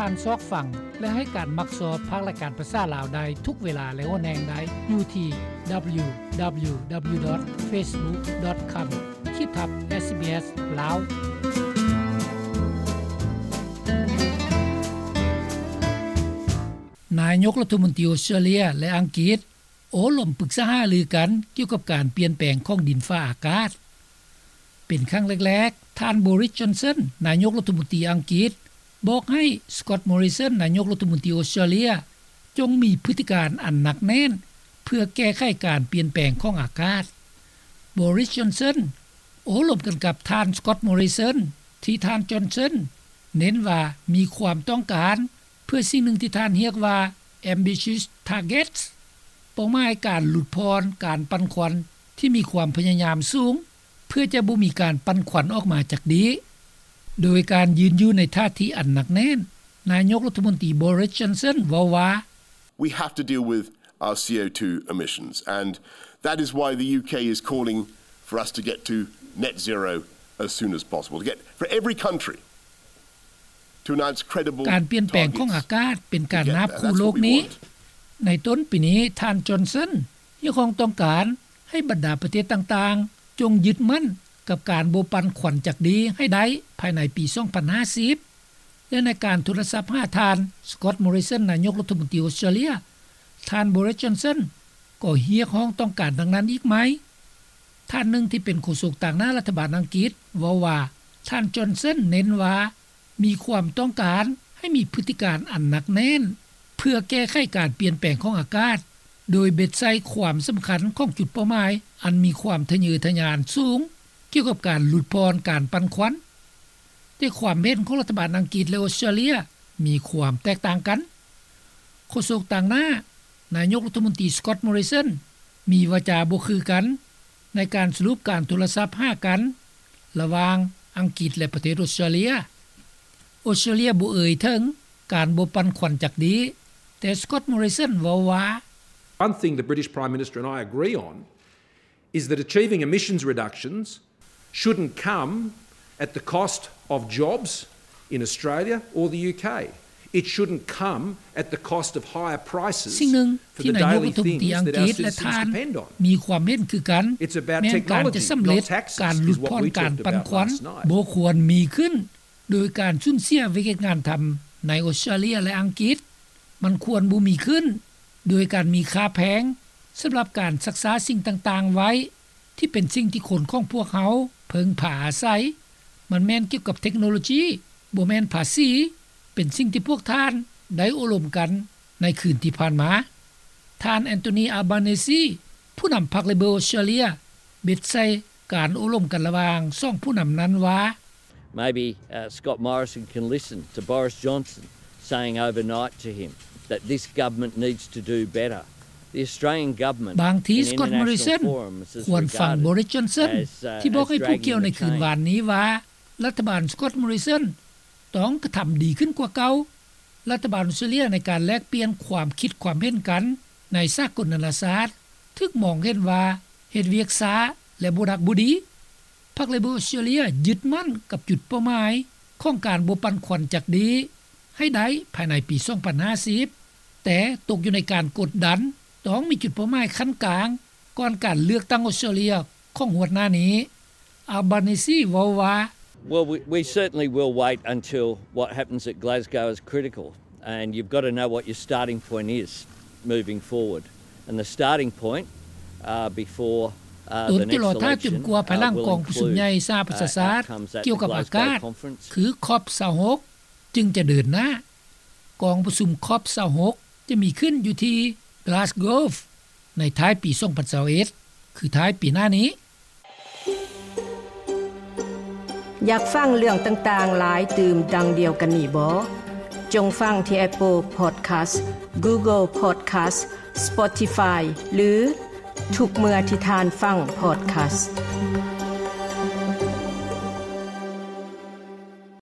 ທ່ານຊອກຟັງ ແລະ ໃຫ້ການມັກຊອບພາກລາຍການພາສາລາວໄດ້ທຸກເວລາ ແລະ ຫົວແຫ່ງໃດ ຢູ່ທີ່ www.facebook.com ຂີດທັບ SBS ລາວ. ນາຍົກລັດຖະມົນຕີອົດສະຕຣາເລຍ ແລະ ອັງກິດ ໂອ້ລົມປຶກສາຫາລືກັນກ່ຽວກັບການປ່ຽນແປງຂອງດິນຟ້າອາກາດ. ເປັນຄັ້ງແລກໆ ທ່ານ ບໍຣິສ ຈອນສັນ ນາຍົກລັດຖະມົນຕີອັງກິດ ບອກໃຫ້ ສະກອດ ມໍຣິສັນ ນາຍົກລັດຖະມົນຕີອົດສະຕຣາເລຍ ຈົ່ງມີພຶດຕິການອັນໜັກແໜ້ນ ເພື່ອແກ້ໄຂການປ່ຽນແປງຂອງອາກາດ. ບໍຣິສ ຈອນສັນ ໂອ້ລົມກັນກັບທ່ານ ສະກອດ ມໍຣິສັນ ທີ່ທ່ານ ຈອນສັນ ເນັ້ນວ່າມີຄວາມຕ້ອງການ ເພື່ອສິ່ງໜຶ່ງທີ່ທ່ານຮຽກວ່າ ambitious targets ເປົ້າໝາຍການຫຼຸດຜ່ອນການປັ່ນຄວັນທີ່ມີຄວາມພະຍາຍາມສູງ ເພື່ອຈະບໍ່ມີການປັ່ນຄວັນອອກມາຈາກດີ. ໂດຍການຢືນຢູ່ໃນທ່າທີອັນໜັກແໜ້ນ, ນາຍົກລັດຖະມົນຕີ ບໍຣິສ ຈອນສັນ ເວົ້າວ່າ, We have to deal with our C O two emissions, and that is why the U K is calling for us to get to net zero as soon as possible, to get, for every country to announce credible targets to get there. That's what we want. ການປ່ຽນແປງຂອງອາກາດເປັນການນາບຂູ່ໂລກນີ້. ໃນຕົ້ນປີນີ້, ທ່ານ ຈອນສັນ ຮຽກຮ້ອງຕ້ອງການໃຫ້ບັນດາປະເທດຕ່າງໆ ຈົ່ງຍຶດໝັ້ນກັບການບໍ່ປັ່ນຄວັນຈັກດີໃຫ້ໄດ້ພາຍໃນປີສອງພັນຫ້າສິບ ແລະ ໃນການໂທລະສັບຫາທ່ານ ສະກອດ ມໍຣິສັນ ນາຍົກລັດຖະມົນຕີອົດສະຕຣາເລຍ, ທ່ານ ບໍຣິສ ຈອນສັນ ກໍຮຽກຮ້ອງຕ້ອງການດັ່ງນັ້ນອີກໃໝ່. ທ່ານໜຶ່ງທີ່ເປັນໂຄສົກຕາງໜ້າລັດຖະບານອັງກິດເວົ້າວ່າ, ທ່ານ ຈອນສັນ ເນັ້ນວ່າມີຄວາມຕ້ອງການໃຫ້ມີພຶດຕິການອັນໜັກແໜ້ນ ເພື່ອແກ້ໄຂການປ່ຽນແປງຂອງອາກາດ, ໂດຍເບັດໃສ່ຄວາມສຳຄັນຂອງຈຸດເປົ້າໝາຍອັນມີຄວາມທະເຍີທະຍານສູງ ກ່ຽວກັບການຫຼຸດຜ່ອນການປັ່ນຄວັນ. ແຕ່ຄວາມເຫັນຂອງລັດຖະບານອັງກິດ ແລະ ອົດສະຕຣາເລຍ ມີຄວາມແຕກຕ່າງກັນ. ໂຄສົກຕາງໜ້ານາຍົກລັດຖະມົນຕີ ສະກອດ ມໍຣິສັນ ມີວາຈາບໍ່ຄືກັນໃນການສະຫຼຸບການໂທລະສັບຫາກັນລະຫວ່າງອັງກິດ ແລະ ປະເທດອົດສະຕຣາເລຍ. ອົດສະຕຣາເລຍບໍ່ເອີ່ຍເຖິງການບໍ່ປັ່ນຄວັນຈັກດີ, ແຕ່ ສະກອດ ມໍຣິສັນ ເວົ້າວ່າ, One thing the British Prime Minister and I agree on is that achieving emissions reductions shouldn't come at the cost of jobs in Australia or the U K. It shouldn't come at the cost of higher prices for the daily things that our citizens depend on. ສິ່ງໜຶ່ງທີ່ນາຍົກລັດຖະມົນຕີອັງກິດ ແລະ ທ່ານ ມີຄວາມເຫັນຄືກັນ ແມ່ນການຈະສຳເລັດການຫຼຸດຜ່ອນການປັ່ນຄວັນ ບໍ່ຄວນມີຂຶ້ນໂດຍການສູນເສຍວຽກເຮັດງານທຳໃນອົດສະຕຣາເລຍ ແລະ ອັງກິດ. ມັນຄວນບໍ່ມີຂຶ້ນໂດຍການມີຄ່າແພງສຳລັບການຮັກສາສິ່ງຕ່າງໆໄວ້ ທີ່ເປັນສິ່ງທີ່ຄົນຂອງພວກເຮົາເພິ່ງພາອາໄສ. ມັນແມ່ນກ່ຽວກັບເທັກໂນໂລຈີ, ບໍ່ແມ່ນພາສີ, ເປັນສິ່ງທີ່ພວກທ່ານໄດ້ໂອ້ລົມກັນໃນຄືນທີ່ຜ່ານມາ. ທ່ານ ແອນໂທນີ ອາບາເນຊີ ຜູ້ນຳພັກເລເບີ ອົດສະຕຣາເລຍ ເບັດໃສ່ການໂອ້ລົມກັນລະຫວ່າງສອງຜູ້ນຳນັ້ນວ່າ, Maybe, uh, Scott Morrison can listen to Boris Johnson saying overnight to him that this government needs to do better. The Australian government, ບາງທີ ສະກອດ ມໍຣິສັນ ຄວນຟັງ ບໍຣິສ ຈອນສັນ ທີ່ບອກໃຫ້ຜູ້ກ່ຽວໃນຄືນວານນີ້ວ່າ ລັດຖະບານ ສະກອດ ມໍຣິສັນ ຕ້ອງກະທຳດີຂຶ້ນກວ່າເກົ່າ. ລັດຖະບານອົດສະຕຣາເລຍໃນການແລກປ່ຽນຄວາມຄິດຄວາມເຫັນກັນໃນສາກົນນານາຊາດ ຖືກມອງເຫັນວ່າເຮັດວຽກຊ້າ ແລະ ບໍ່ດັກບໍ່ດີ. ພັກເລເບີ ອົດສະຕຣາເລຍ ຍຶດໝັ້ນກັບຈຸດເປົ້າໝາຍຂອງການບໍ່ປັ່ນຄວັນຈັກດີໃຫ້ໄດ້ພາຍໃນປີສອງພັນຫ້າສິບ ແຕ່ຕົກຢູ່ໃນການກົດດັນ ຕ້ອງມີຈຸດເປົ້າໝາຍຂັ້ນກາງ ກ່ອນການເລືອກຕັ້ງອົດສະຕຣາເລຍຂອງງວດໜ້ານີ້. ອາບາເນຊີ ເວົ້າວ່າ, Well, we, we certainly will wait until what happens at Glasgow is critical, and you've got to know what your starting point is moving forward. And the starting point, uh, before, uh, the next election, uh, will include, uh, a climate change, uh, conference. ຕົນຈະລໍຖ້າຈົນກວ່າພາຍຫຼັງກອງປະຊຸມໃຫຍ່ສະຫະປະຊາຊາດກ່ຽວກັບອາກາດ ຄື ຄອບຊາວຫົກ ຈຶ່ງຈະເດີນໜ້າ. ກອງປະຊຸມ ຄອບຊາວຫົກ ຈະມີຂຶ້ນຢູ່ທີ່ Glasgow ໃນທ້າຍປີສອງພັນຊາວເອັດ ຄືທ້າຍປີໜ້ານີ້. ຢາກຟັງເລື່ອງຕ່າງໆຫຼາຍຕື່ມດັ່ງດຽວກັນນີ້ບໍ? ຈົ່ງຟັງທີ່ Apple Podcast, Google Podcast, Spotify ຫຼື ທຸກເມື່ອທີ່ທ່ານຟັງ podcast.